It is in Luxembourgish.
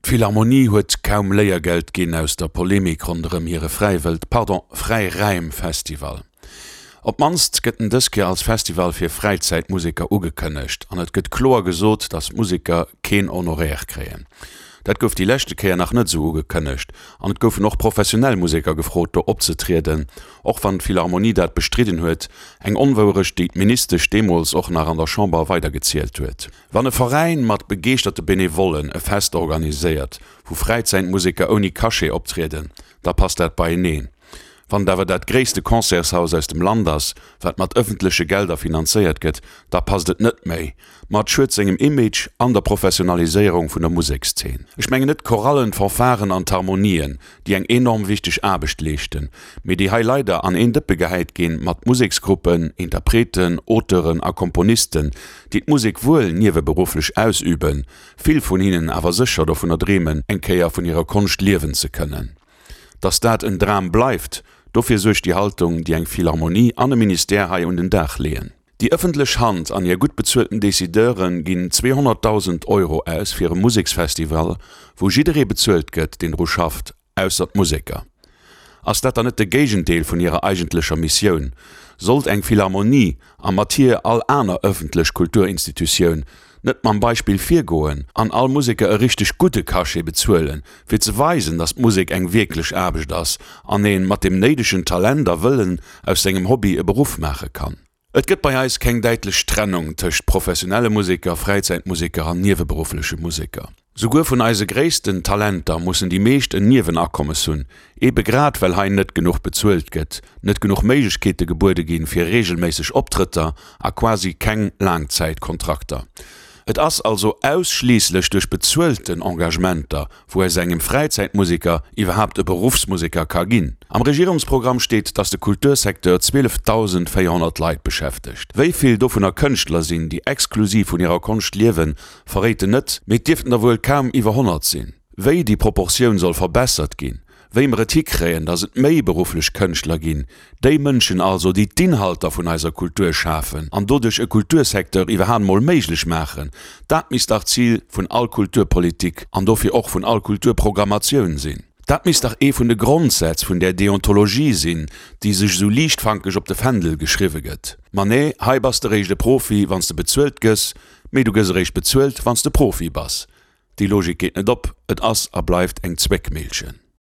D'Philharmonie huet kaum Léiergeld ginn aus der Polemik ronderëm hire Fräiwëld, pardon, Fräiräim-Festival. Op d'mannst gëtt en dës Kéier als Festival fir Fräizäitmuseker ugekënnegt an et gëtt kloer gesot, datt d'Museker keen Honoraire kréien. Dat gouf déi leschte Kéier nach net esou ugekënnegt an et goufen och professionell Museker gefrot do opzetrieden, och wann d'Philharmonie dat bestridden huet, eng Onwouerecht déi d'Ministesch deemools och nach an der Chamber weidergezielt huet. Wann e Veräin mat begeeschterte Benevollen e Fest organiséiert, wou Fräizäitmuseker ouni Cachet optrieden, da passt dat beieneen. Wann et awer dat gréisste Concertshaus aus dem Land ass, wat mat ëffentleche Gelder finanzéiert gëtt, da passt et net méi. Ma et schued sengem Image an der Professionaliséierung vun der Musekszeen. Ech mengen net d'Chorallen, d'Fanfaren an d'Harmonien, déi eng enorm wichteg Aarbecht leeschten, mee déi hei leider an een Dëppe gehäit ginn mat Museksgruppen, Interpreten, Auteuren a Komponisten, déi d'Musek wuel nieweberufflech ausüben, vill vun hinnen awer sécher dovunner dreemen, eng Kéier vun hirer Konscht liewen ze kënnen. Datt dat en Dram bleift, dofir suergt déi Haltung, déi eng Philharmonie an e Ministère hei un den Dag leeën. Déi ëffentlech Hand an hir gutt bezuelten Decideure ginn 200.000 Euro aus fir e Museksfestival, wou jidderee bezuelt gëtt, deen dru schafft, ausser d'Museker. Ass dat dann net de Géigendeel vun hirer eigentlecher Missioun? Sollt eng Philharmonie, a mat hir all aner ëffentlech Kulturinstitutioun, net mam Beispill virgoen an all Museker e richteg gudde Cachet bezuelen, fir ze weisen, datt d'Musek eng wierklech Aarbecht ass an ee mat dem néidegen Talent a Wëllen aus sengem Hobby e Beruff maache kann? Et gëtt bei eis keng däitlech Trennung tëscht professionelle Museker, Fräizäitmuseker an nieweberuffleche Museker. Souguer vun eise gréissten Talenter mussen déi meescht en Niewenakommes hunn, ebe grad well hei net genuch bezuelt gëtt, net genuch Méiglechkeete gebuede ginn fir reegelméisseg Optrëtter a quasi keng Laangzäitkontrakter. Et ass also ausschliisslech duerch bezuelten Engagementer, wou aus engem Fräizäitmuseker iwwerhaapt e Beruffsmuseker ka ginn. Am Regierungsprogramm steet, datt de Kultursecteur 12.400 Leit beschäftegt. Wéi vill dovunner Kënschtler sinn, déi exklusiv vun hirer Konscht liewen, verréit en net, mee et dierften der wuel kaum iwwer 100 sinn. Wéi déi Proportioun soll verbessert ginn, wéi mer et hikréien, datt et méi berufflech Kënschtler ginn, déi Mënschen also, déi d'Inhalter vun eiser Kultur schafen an doduerch e Kultursecteur iwwerhaapt mol méiglech maachen, dat misst dach d'Zil vun all Kulturpolitik an dofir och vun all Kulturprogrammatioun sinn. Dat misst dach ee vun de Grondsätz vun där Deontologie sinn, déi sech esou liichtfankeg op de Fändel geschriwwe gëtt. Ma nee, hei bass de réischt e Profi, wann s de bezuelt gëss, mee du gëss eréischt bezuelt, wann s de Profi bass. Déi Logik geet net op, et ass a bleift eng Zwéckmillchen.